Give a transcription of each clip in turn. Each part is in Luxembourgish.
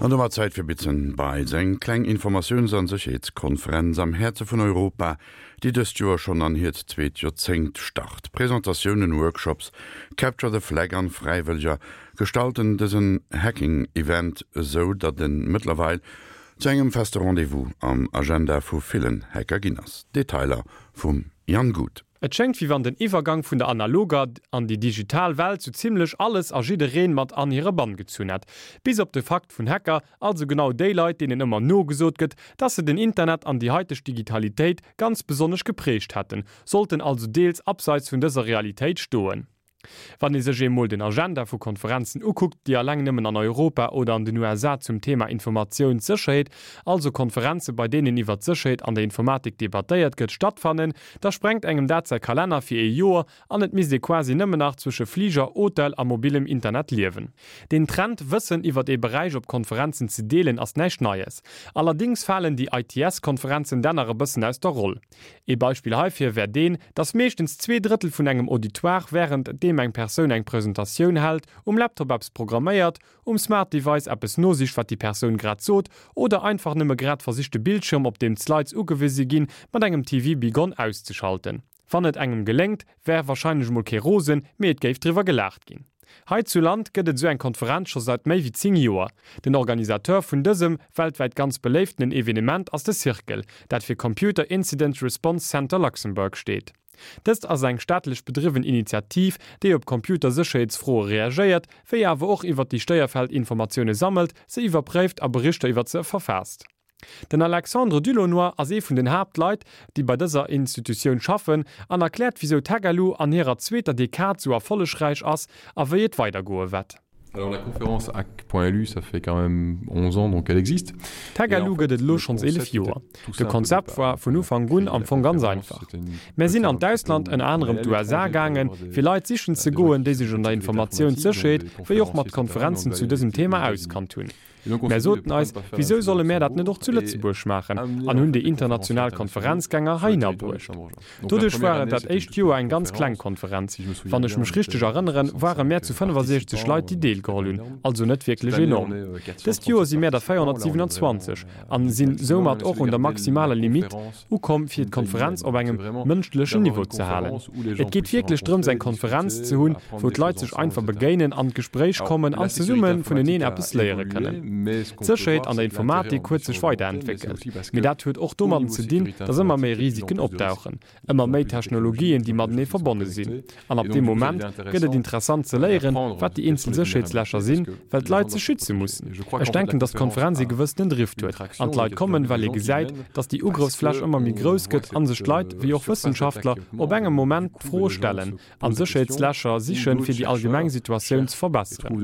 An domat Zäit fir Bits and Bytes, eng kleng Informatiouns an Sécherheetskonferenz am Häerze vun Europa, déi dëst Joer schonn an hiert zweet Joerzéngt start. Presentatiounen, Workshops, Capture the Flag an Fräiwëlleger gestalten dësen Hacking-Event esou, datt en mëttlerweil zu engem feste Rendez-vous am Agenda vu villen Hacker ginn ass. Detailer vum Jan Guth. Et schéngt wéi wann den Iwwergang vun der analoger an déi digital Welt sou zimlech alles a jiddereen mat an hire Bann gezunn hätt. Bis op de Fakt vun Hacker, also genau déi Leit deenen ëmmer nogesot gëtt, dass se den Internet an déi haiteg Digitalitéit ganz besonnesch geprägt hätten, sollten also deels abseits vun dëser Realitéit stoen. Wann ee sech emol den Agenda vu Konferenzen ukuckt, déi alleng nëmmen an Europa oder an den USA zum Thema Informatiounssécherheet, also Konferenze bei deenen iwwer d'Sécherheet an der Informatik debattéiert gëtt, stattfannen, da sprengt engem dat säi Kalenner fir ee Joer an et misst ee quasi nëmmen nach zwësche Fliger, Hotel a mobilem Internet liewen. Den Trend, Wëssen iwwer ee Beräich op Konferenzen ze deelen, ass näischt Neies. Allerdings falen déi ITS-Konferenzen dann nach e bëssen aus der Roll. Ee Beispill heifir wär deen, dass meeschtens 2 Drëttel vun engem Auditoire wärend deem eng Persoun eng Presentatioun hält, um Laptop eppes programméiert, um Smart Device eppes nosicht wat déi Persoun grad sot oder einfach nëmme grad versicht de Bildschirm op deem d'Slides ugewise ginn mat engem TV Be Gone auszeschalten. Wann et engem geléngt, wär warscheinlech mol kee rosen, mee et géif driwwer gelaacht ginn. Hei zu Land gëtt et esou eng Konferenz scho seit méi wéi 10 Joer. Den Organisateur vun dësem, weltwäit ganz beléiftenen Evenement ass de Circle, dat fir Computer Incident Response Center Luxembourg steet. Dëst ass eng staatlech bedriwwen Initiativ, déi op Computersécherheetsfroe reagéiert, wéi awer och iwwer déi Stéierfäll Informatioune sammelt, se iwwerpréift a Berichter iwwer se verfaasst. Den Alexandre Dulaunoy ass ee vun den Haaptleit, déi bei dëser Institutioun schaffen, an erkläert wisou d'Hackalu an hirer zweeter Dekad sou erfollegräich ass a wéi et weidergoe wett. Alors la conférence hack.lu, ça fait quand même 11 ans donc elle existe. D'Hackalu gëtt et elo schonns 11 Joer. De Konzept war vun Ufank un am Fong ganz einfach. Mär sinn an d'Ausland, ënner anerem d'USA, gaangen, fir Leit sichen ze goen, déi sech an der Informatiounssécherheet wéi och mat Konferenzen zu dësem Thema auskannt hunn. Mär soten eis, Wisou solle mär dat net och zu Lëtzebuerg maachen? an hunn déi international Konferenzgänger heihinner bruecht. Doduerch war et dat éischt Joer eng ganz kleng Konferenz. Wann ech mech richteg erënneren, ware mär zu 65 Leit, déi deelgeholl hunn, also net wierklech enorm. Dëst Joer si mär der 427 an sinn soumat och un der maximaler Limitt. Ukomm, fir d'Konferenz op engem mënschlechen Niveau ze halen. Et geet wierklech drëms eng Konferenz ze hunn, wou d'Leit sech einfach begéinen, an d'Gespréich kommen an zesumme vuneneen eppes léiere kënnen. D'Sécherheet an der Informatik huet sech weiderentwéckelt, mee dat huet och domadden ze dinn, datt ëmmer méi Risiken opdauchen, ëmmer méi Technologien, déi matenee verbonne sinn. An ab deem Moment gëtt et interessant ze léieren, wat déi eenzel Sécherheetslächer sinn, well d'Leit sech schütze mussen. Ech denken, datt d'Konferenz ee gewëssenen Drift huet an d'Leit kommen, well ee gesäit, datt déi Ugrëffsfläch ëmmer méi grouss gëtt a sech d'Leit, wéi och Wëssenschaftler, op engem Moment d'Fro stellen a Sécherheetslächer sichen, fir déi allgemeng Situatioun ze verbesseren.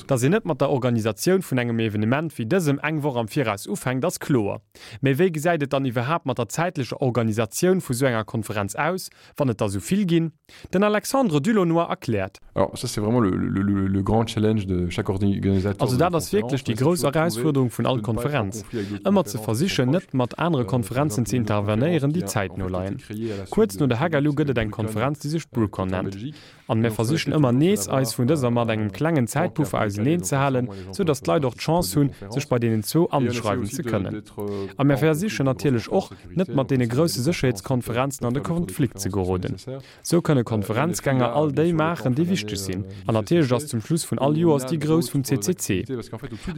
Datt een net mat der Organisatioun vun engem Evenement wéi dësem eng Woch am Viraus ufänkt, ass kloer. Mee wéi gesäit et dann iwwerhaapt mat der zäitlecher Organisatioun vu sou enger Konferenz aus, wann et der sou vill ginn? Den Alexandre Dulaunoy erkläert. Alors ça c'est vraiment le, le, le, le grand challenge de chaque organisateur. Also dat ass wierklech déi grouss Erausfuerderung vun all Konferenz, ëmmer ze versichen, net mat anere Konferenzen ze intervenéieren, déi zäitno leien. Kuerz no der Hagalu gëtt et eng Konferenz, déi sech BruCON nennt. An mir versichen ëmmer nees, eis vun dëser mat engem klengen Zäitpuffer auseneen ze halen, sou datt d'Leit och d'Chance hunn, sech bei deenen zwou anschreiwen ze kënnen. A mir versichen natierlech och, net mat deene grousse Sécherheetskonferenzen an de Konflikt ze geroden. Sou kënne Konferenzgänger all déi maachen, déi wichteg sinn. An natierlech ass zum Schluss vun all Joers déi grouss vum CCC.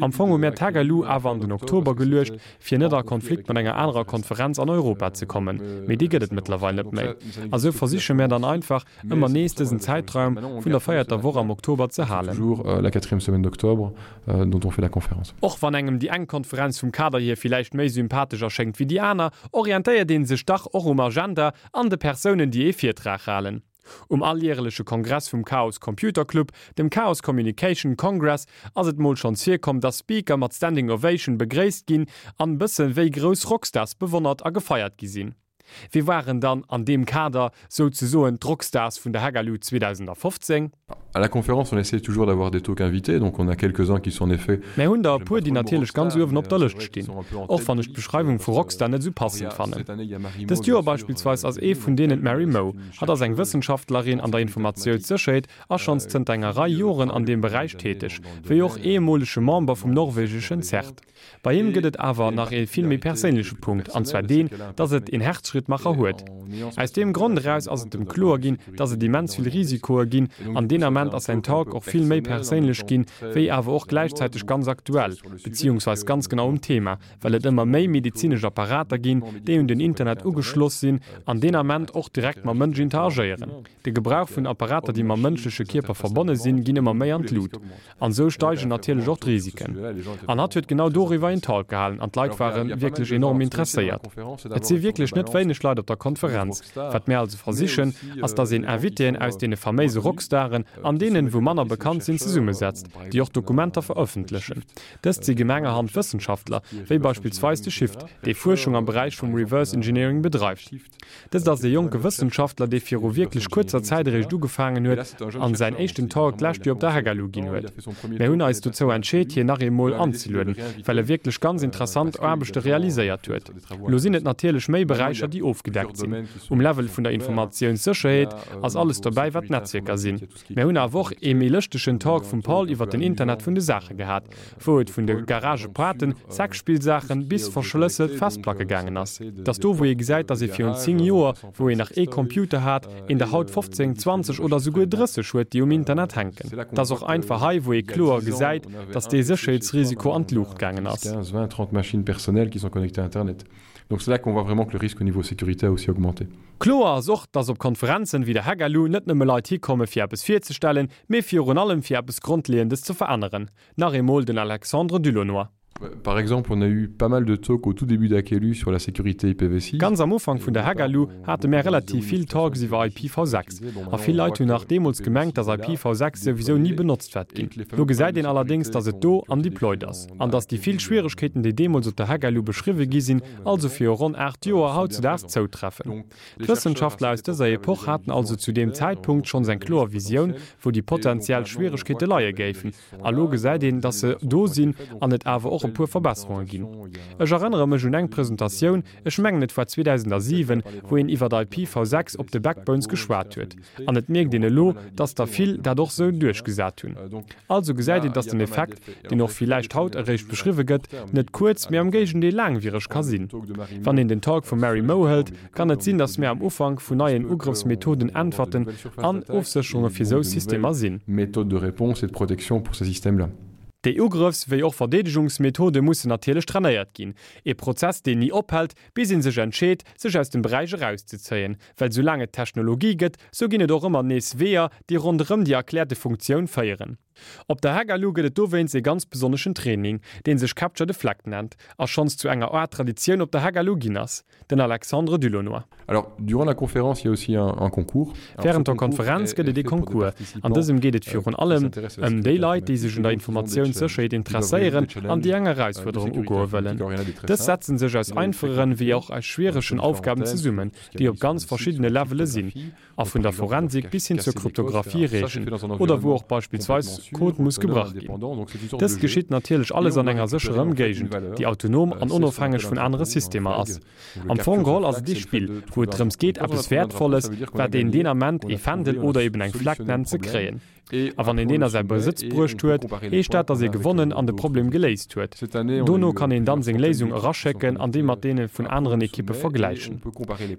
Am Fong hu mir d'Hagalu awer an den Oktober geluecht, fir net a Konflikt mat enger anerer Konferenz an Europa ze kommen, mee déi gëtt et mëttlerweil net méi. A sou versiche mär dann einfach, ëmmer nees dësen Zäitraum vun der véierter Woch am Oktober ze halen. Och wann engem déi eng Konferenz vum Kader hier villäicht méi sympathesch erschéngt wéi déi aner, orientéiert ee sech dach och um Agenda an de Persounen, déi ee Virtrag halen. Um alljäreleche Kongress vum Chaos Computer Club, dem Chaos Communication Congress, ass et mol schonns virkomm, dass Speaker mat Standing Ovation begréisst ginn an bësse wéi grouss Rockstars bewonnert a gefeiert gi sinn. Wie waren dann an deem Kader souzesoen d'Rockstars vun der Hagalu 2015? À la conférence, on essaie toujours d'avoir des talks invités, donc on a quelques-uns qui sont en effet. Mär hunn der e puer, déi natierlech ganz uewen op der Lëscht stinn, och wann ech d'Beschreiwung vu Rockstar net esou passend fannen. Dëst Joer beispillsweis ass ee vun deenen d'Mary Moe. Hatt ass eng Wëssenschaftlerin an der Informatioussécherheet a schonns zënter enger Rei Joren an deem Beräich täteg, wéi och ehemolege Member vum norwegeschen CERT. Bei him gëtt et awer nach ee vill méi perséinleche Punkt, an zwar deen, dass et een Herzschrittmacher huet. Aus deem Grond eraus ass et em kloer ginn, dass et immens vill Risikoe ginn, an deen Ament ass säin Talk och vill méi perséinlech ginn, wéi awer och gläichzäiteg ganz aktuell, beziehungsweis ganz genau um Thema, well et ëmmer méi medezinesch Apparater ginn, déi un den Internet ugeschloss sinn an deen Ament och direkt mam Mënsch interagéieren. De Gebrauch vun Apparater, déi mam mënschleche Kierper verbonne sinn, ginn ëmmer méi an d'Lut. An esou steigen natierlech och d'Risiken. An hatt huet genau doriwwer een Talk gehalen an d'Leit ware wierklech enorm interesséiert. Et si wierklech net wéineg Leit op der Konferenz. Wat mär also versichen, ass dass een Invitéen aus deene faméise Rockstaren an deenen, wou manner bekannt sinn, zesummesetzt, déi och Dokumenter verëffentlechen. Dëst si gemengerhand Wëssenschaftler, wéi beispillsweis de Shift, dee Fuerschung am Beräich vum Reverse Engineering bedreift. Dëst ass e jonke Wëssenschaftler, dee viru wierklech kuerzer Zäit eréischt ugefaangen huet an säin éischten Talk d'lescht Joer op der HackAlu ginn huet. Mär hunn eis dozou entscheet, hien nach eemol anzelueden, well e wierklech ganz interessant Aarbechte realiséiert huet. Elo sinn et natierlech méi Beräicher, déi ofgedeckt sinn. Um Level vun der Informatiounssécherheet ass alles dobäi, wat Netzwierker sinn. Mär hunn awer och ee méi lëschtegen Talk vum Paul iwwer den Internet vun de Saache gehat, wou et vun de Garagepoarten, Sexspillsaachen bis verschlësselt Festplacke gaangen ass. Et ass do wou ee gesäit, dass ee virun 10 Joer, wou een nach ee Computer hat, een der haut 15, 20 oder souguer 30 huet, déi um Internet hänken. Et ass och einfach hei wou ee kloer gesäit, dass dee Sécherheetsrisiko an d'Luucht gaangen ass. Donc c'est là qu'on voit vraiment que le risque au niveau sécurité a aussi augmenté. Kloer ass och, dass op Konferenzen wéi der Hackalu net nëmme Leit hikomme fir eppes virzestellen, mee virun allem fir eppes Grondleeëndes ze veränneren. Nach eemol den Alexandre Dulaunoy. Par exemple, on a eu pas mal de talks au tout début d'Hackelu sur la sécurité IPv6. Ganz am Ufank vun der Hackalu hate mär relativ vill Talks iwwer IPv6. A vill Leit hunn nach deemools gemengt, dass IPv6 souwisou ni benotzt wäert ginn. Lo gesäit een allerdéngs, dass et do an deployed ass. An dass déi vill Schwieregkeeten, déi deemools op der Hackalu beschriwwe gi sinn, also viru ronn 8 Joer, hautzedaags zoutreffen. D'Wëssenschaftler aus dëser Epoch haten also zu deem Zäitpunkt schonns eng kloer Visioun, wou déi potentiell Schwieregkeete leie géifen. A lo gesäit een, dass se do sinn an et awer och e puer Verbesserunge ginn. Ech erënnere mech un eng Presentatioun, ech mengen et war 2007, wou een iwwert IPv6 op de Backbones geschwat huet. An et mierkt een elo, dass der vill dat och sou duerchgesat hunn. Also gesäit een, dass den Effekt, deen och villäicht haut eréischt beschriwwe gëtt, net kuerz, mee am Géigendeel laangwiereg ka sinn. Wann een den Talk vum Mary Moe hëlt, kann et sinn, dass mir am Ufank vun neien Ugrëffsmethoden, Äntwerten an Ofsécherunge fir sou Systemer sinn. Déi Ugrëffs wéi och Verdeedegungsmethode mussen natierlech trainéiert ginn, ee Prozess, deen ni ophält, bis ee sech entscheet, sech aus dem Beräich erauszezéien. Well soulaang et Technologie gëtt, sou ginn et och ëmmer nees Weeër, déi ronderëm déi erkläerte Funktioun féieren. Op der Hackalu gëtt et dowéinst ee ganz besonneschen Training, dee sech Capture the Flag nennt a schonns zu enger Aart Traditioun op der Hackalu ginn ass. Den Alexandre Dulaunoy. Alors, durant la conférence, il y a aussi un, un concours. Wärend der Konferenz gëtt et ee Concours. An dësem geet et virun allem ëm déi Leit, déi sech un der Informatiounssécherheet interesséieren an déi eng Erausfuerderung ugoe wëllen. Dës setzen sech aus einfacheren wéi och aus schwieregen Aufgaben zesummen, déi op ganz verschiddene Levele sinn a vun der Forensik bis hin zur Kryptographie reechen oder wou och beispillsweis Code muss gebrach ginn. Dëst geschitt natierlech alles an enger sécherer Ëmgéigend, déi autonom an onofhängeg vun anere Systemer ass. Am Fong geholl ass et ee Spill, wou et drëms geet, eppes Wäertvolles, wat een deen Ament ee Fändel oder eben eng Fleck nennt, ze kréien. A wann een deen a säi Besëtz bruecht huet, heescht dat, datt ee gewonnen an de Problem geléist huet. Dono kann een dann seng Léisung eraschécken an déi mat deene vun aneren Ekippe vergläichen.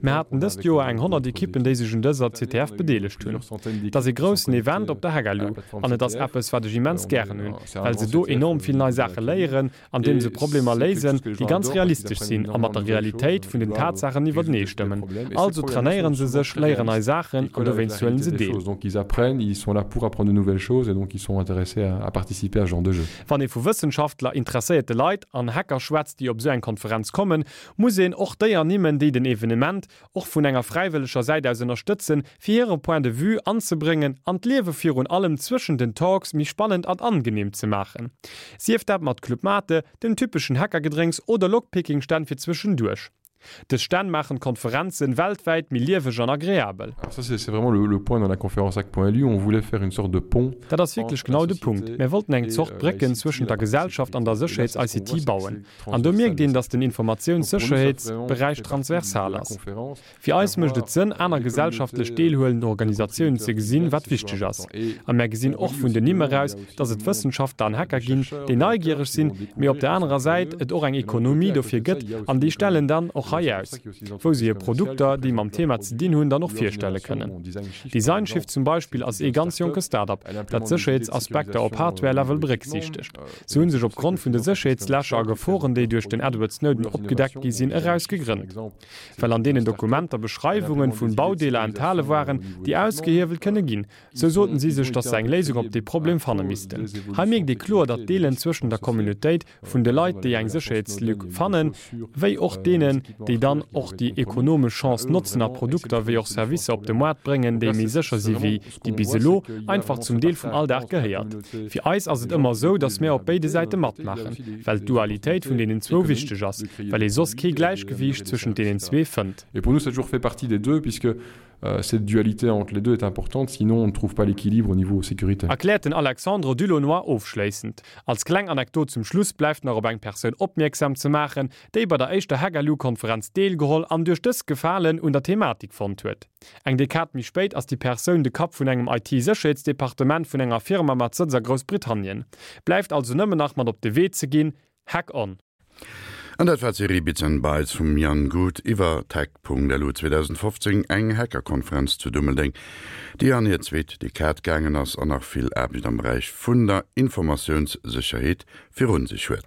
Mir haten dëst Joer eng 100 Ekippen, déi sech un dëser CTF bedeelegt hunn. Et ass ee groussen Event op der Hackalu an et ass eppes, wat ech immens gären hunn, well se do enorm vill nei Saache léieren andeem se Problemer léisen, déi ganz realistesch sinn a mat der Realitéit vun den Tatsaachen iwwertenee stëmmen. Also trainéieren se sech, léieren nei Saachen an dowéinst huelen se deel. Wann ee vu Wëssenschaftler, interesséierte Leit an Hacker schwätzt, déi op esou eng Konferenz kommen, muss een och déi ernimmen, déi den Evenement och vun enger fräiwëlleger Säit aus ënnerstëtzen, fir hire Point de vue anzebréngen an d'Liewe virun allem zwëschen den Talks méi spannend an angenehm ze maachen. Sief dat mat Club Mate, dem typeschen Hackergedrénks oder Lockpicking-Stänn fir zwëschenduerch. Dës Stänn maachen d'Konferenzen weltwäit méi lieweg an agreabel. Alors ça c'est vraiment le, le point dans la conférence hack.lu, on voulait faire une sorte de pont Dat ass wierklech genau de Punkt. Mär wollten eng Zort Brécken zwëschent der Gesellschaft an der Sécherheets-ICT bauen. An do mierkt een, datt den Informatiounssécherheetsberäich transversal ass. Fir eis mécht et Sënn, aner gesellschaftlech deelhuelend Organisatiounen ze gesinn, wat wichteg ass. A mär gesinn och vun den Nimm eraus, datt et Wëssenschaftler an Hacker ginn, déi neigiereg sinn, mee op der anerer Säit et och eng Ekonomie dofir gëtt an déi stellen dann och hei aus, wou se hir Produkter, déi mam Thema ze dinn hunn, dann och virstelle kënnen. Designshift zum Beispill ass ee ganz jonke Start-up, dat Sécherheetsaspekter op Hardware-Level berécksiichtegt. Se hu sech opgrond vun de Sécherheetslächer a Geforen, déi duerch den Edward Snowden opgedeckt gi sinn, eraus gegrënnt. Well an deenen Dokumenter Beschreiwungen vun Baudeeler enthale waren, déi ausgehiewelt kënne ginn, sou soten si sech, datt se eng Léisung op dee Problem fanne missten. Hei mierkt ee kloer, datt d'Deelen zwëschen der Communautéit vun de Leit, déi eng Sécherheetslück fannen, wéi och deenen, déi dann och déi ekonomesch Chance notzen a Produkter wéi och Servicer op de Moart bréngen, déi méi sécher si wéi déi bis elo, einfach zum Deel vum Alldag gehéiert. Fir eis ass et ëmmer esou, datt mär op béide Säite matmaachen, well d'Dualitéit vun deenen zwou wichteg ass, well ee soss kee Gläichgewiicht zwëschent deenen zwee fënnt. Et pour nous ça a toujours fait partie des deux puisque cette dualité entre les deux est importante, sinon on ne trouve pas l'équilibre au niveau sécurité. Erkläert den Alexandre Dulaunoy ofschléissend. Als kleng Anekdot zum Schluss bleift nach op eng Persoun opmierksam ze maachen, déi bei der éischter Hack-LU-Konferenz deelgeholl an duerch dës Gefalen un der Thematik fonnt huet. Eng Dekad méi spéit ass déi Persoun de Kapp vun engem IT-Sécherheetsdepartement vun enger Firma mat Sëtz a Groussbritannien. Bleift also nëmmen nach mat op de Wee ze ginn, Hack on! An dat war d'Serie Bits and Bytes vum Jan Guth iwwer d'Hack.lu 2015, eng Hackerkonferenz zu Dummeldeng, déi an hir zweet Dekad gaangen ass an nach vill Aarbecht am Beräich vun der Informatiounssécherheet virun sech huet.